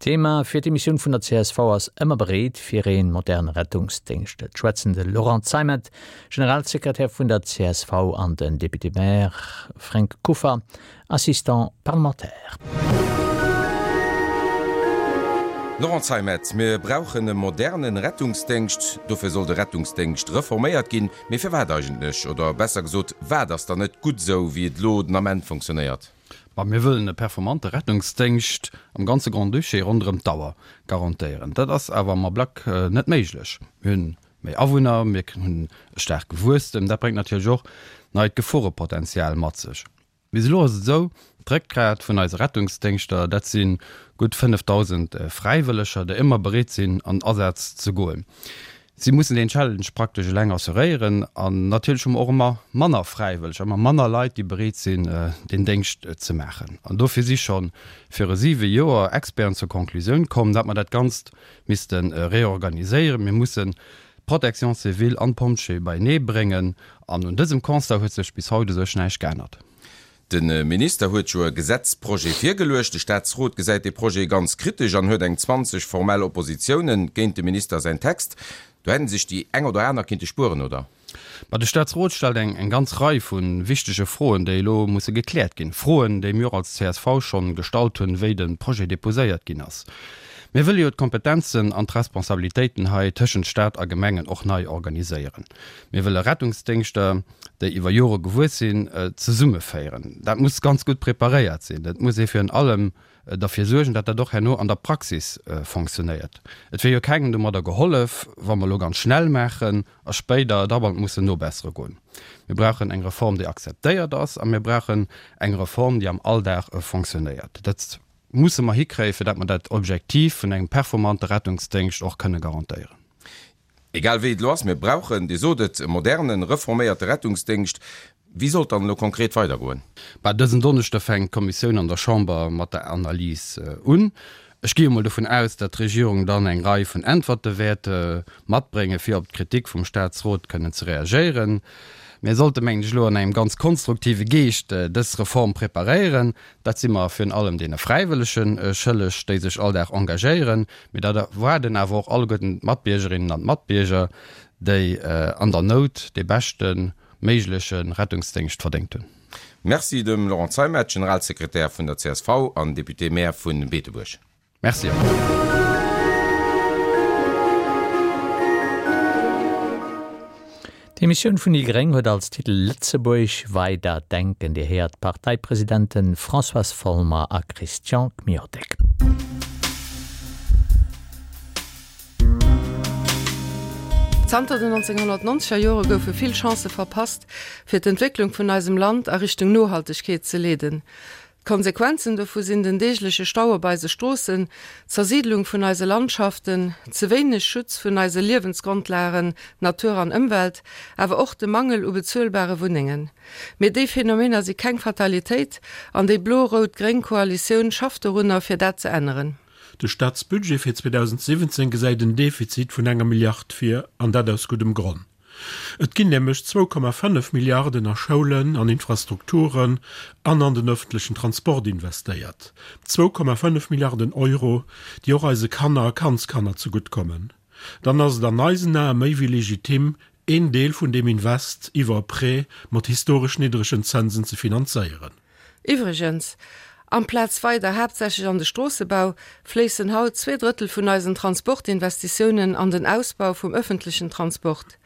D'Thema fir d'Emissioun vun der csv ass Ëmmer bereet fir ee moderne Rettungsdéngscht. Et schwätzen de Laurent Zeimet, Generalsekretär vun der csv an den Député-Maire Fränk Kuffer, Assistant parlementaire. Laurent Zeimet, Mir brauchen e modernen Rettungsdéngscht. Dofir soll de Rettungsdéngscht reforméiert ginn. Mee firwat eigentlech? Oder besser gesot, wat ass dann net gutt esou, wéi et elo den Ament fonctionnéiert? Ma mir wëllen e performante Rettungsdéngscht am ganze Grand-Duché ronderëm d'Auer garantéieren. Dat ass awer am Ablack net méiglech. Mir hunn méi Awunner, mir hunn e staarke Wuesstem. Dat bréngt natierlech och neit Geforepotenzial mat sech. Bis elo ass et esou, d'Réckgrat vun eise Rettungsdéngschter, dat si gutt 5.000 Fräiwëlleger, déi ëmmer bereet sinn an Asaz ze goen. Si mussen deen Challenge praktesch eleng assuréieren. An natierlech hu mer och ëmmer manner Fräiwëlleger, ëmmer manner Leit, déi bereet sinn, deen Déngscht ze maachen. An dofir si scho viru siwe Joer Experten zur Conclusioun komm, datt mer dat Ganzt misste reorganiséieren. Mir mussen d'Protection civile an d'Pompjeeë beienee bréngen. An un dësem Constat huet sech bis haut u sech näischt geännert. De Minister huet jo e Gesetzprojet virgeluecht. De Staatsrot gesäit dee Projet ganz kritesch an huet eng 20 formell Oppositiounen géint dem Minister säin Text. Do hätt sech déi eng oder aner kinnte spueren, oder? Ma de Staatsrot stellt eng ganz Rei vu wichtege Froen, déi elo musse gekläert ginn. Froen, déi mir och als csv schonn gestallt hunn, wéi de Projet deposéiert ginn ass. Mir wëlle jo d'Kompetenzen an d'Responsabilitéiten hei tëschent Staat a Gemengen och nei organiséieren. Mir wëlle Rettungsdéngschter, déi iwwer Jore gewuess sinn, zesummeféieren. Dat muss ganz gutt preparéiert sinn. Et muss ee virun allem derfir suergen, datt dat och herno an der Praxis fonctionnéiert. Et wier jo kengem domadder gehollef, wa mer elo ganz schnell maachen a spéider dauernd mussen nobessere goen. Mir brauchen eng Reform, déi akzeptéiert ass, a mir brauchen eng Reform, déi am Alldag fonctionnéiert. Dat musse mer hikréien, fir datt mer dat Objektiv vun engem performante Rettungsdéngscht och kënne garantéieren. Egal wéi et elo ass, mir brauchen, Dir sot et, e modernen, reforméierte Rettungsdéngscht. Wéi soll et dann elo konkret weidergoen? Bah, dësen Donneschde fänkt d'Kommissioun an der Chamber mat der Analys un. Ech gi emol dovun aus, datt d'Regierung dann eng Rei vun Äntwerte wäert matbréngen, fir op d'Kritik vum Staatsrot kënnen ze reagéieren. Mir sollte, mengen ech, elo an engem ganz konstruktive Geescht dës Reform preparéieren. Dat si mer virun allem deene Fräiwëllege schëlleg, déi sech all Dag engagéieren. Mee dat erwaarden awer och alleguerten d'Matbiergerinnen an d'Matbierger, déi an der Nout dee beschte méigleche Rettungsdéngscht verdéngt hunn. Merci dem Laurent Zeimet, Generalsekretär vun der csv an Député-Maire vu Beetebuerg. Merci och. D'Emissioun vun déi gréng huet als Titel Lëtzebuerg weider denken. Dir héiert d'Parteipresidenten Françoise Folmer a Christian Kmiotek. Zanter den 1990er Jore goufe vill Chancë verpasst, fir d'Entwécklung vun eisem Land a Richtung Nohaltegkeet ze leeden. D'Konsequenzen dovu sinn den deegleche Stau op eise Stroossen, d'Zersiidlung vun eise Landschaften, ze wéineg Schutz vun eise Liewensgrondlagen, Natur an Ëmwelt, awer och de Mangel u bezuelbare Wunnengen. Mee déi Phänomener si keng Fatalitéit an déi blo-rout-gréng Koalitioun schafft dorunner, fir dat ze änneren. De Staatsbudget fir 2017 gesäit en Defizit vun enger Milliard vir, an dat aus guddem Gronn. Et ginn nämlech 2,5 Milliarden a Schoulen, an Infrastrukturen an an den ëffentlechen Transport investéiert. 2,5 Milliarden Euro, déi och eise Kanner a Kandskanner zegutt kommen. Dann ass et an eisen Ae méi wéi legitim, een Deel vun deem Invest iwwer e Prêt mat historesch niddregen Zënsen ze finanzéieren. Iwwregens, amplaz weider haaptsächlech an de Stroossebau, fléissen haut zweedrëttel vun eisen Transportinvestitiounen an den Ausbau vum ëffentlechen Transport.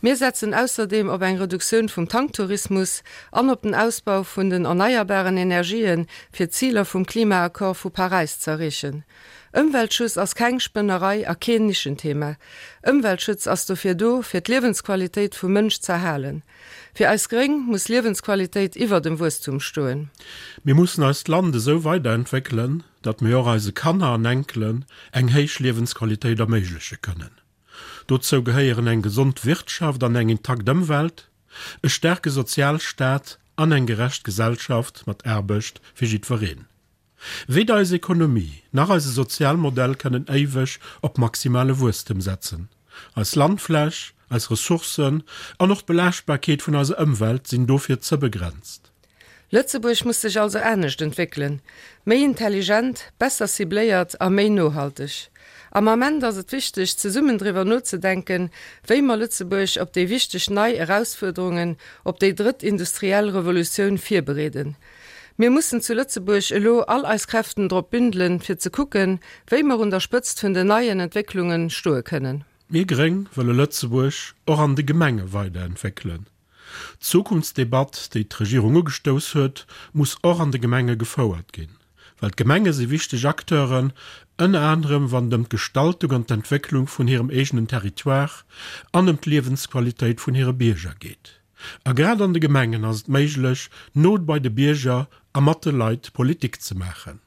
Mir setzen ausserdeem op eng Reduktioun vum Tanktourismus an op den Ausbau vun den erneierbaren Energien, fir d'Ziler vum Klimaaccord vu Paräis z'erreechen. Ëmweltschuss ass keng Spënnerei a keen Nischenthema. Ëmweltschutz ass dofir do, fir d'Liewensqualitéit vum Mënsch z'erhalen. Fir eis Gréng muss Liewensqualitéit iwwer dem Wuesstum stoen. Mir mussen eist Land esou weiderentwéckelen, datt mir och eise Kanner an Enkelen eng héich Liewensqualitéit erméigleche kënnen. Dozou gehéieren eng gesond Wirtschaft an eng intakt Ëmwelt, e staarke Sozialstaat an eng gerecht Gesellschaft mat Aarbecht fir jiddwereen. Weder eis Ekonomie nach eise Sozialmodell kënnen éiweg op maximale Wuesstem setzen. Eis Landfläch, eis Ressourcen an och d'Belaaschtbarkeet vun eiser Ëmwelt sinn dofir ze begrenzt. Lëtzebuerg muss sech also anescht entwéckelen, méi intelligent, besser cibléiert a méi nohalteg. Am Ament ass et wichteg, zesummen driwwer nozedenken, wéi mer Lëtzebuerg op déi wichteg nei Erausfuerderungen, op déi drëtt industriell Revolutioun virbereeden. Mir mussen zu Lëtzebuerg elo all eis Kräften drop bündelen, fir ze kucken, wéi mer un der Spëtzt vun den neien Entwécklunge stoe kënnen. Mir Gréng wëlle Lëtzebuerg och an de Gemenge weiderentwéckelen. D'Zukunftsdebatt, déi d'Regierung ugestouss huet, muss och an de Gemenge gefouert ginn. Well d'Gemenge si wichteg Acteuren, ënner anerem wann et ëm d'Gestaltung an d'Entwécklung vun hirem eegenen Territoire an ëm d'Liewensqualitéit vun hire Bierger geet. A grad an de Gemengen ass et méiglech, no bei de Bierger a mat de Leit Politik ze maachen.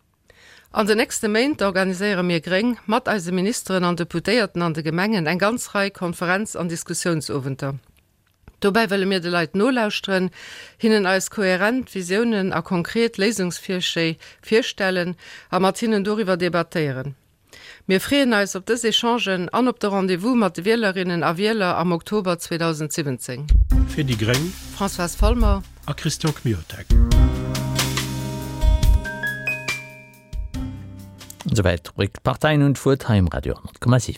An den nächste Méint organiséiere mir Gréng mat eise Ministeren an Deputéierten an de Gemengen eng ganz Rei Konferenz an Diskussiounsowenter. Dobäi wëlle mir de Leit nolauschteren, hinnen eis kohärent Visiounen a konkret Léisungsvirschléi virstellen a mat hinnen doriwwer debattéieren. Mir freeën eis op dës Echangen an op de Rendez-vous mat de Wielerinnen a Wieler am Oktober 2017. Fir déi gréng. Françoise Folmer. A Christian Kmiotek. Esouwäit d'Rubrik D'Parteien hunn d'Wuert hei um Radio 10,7.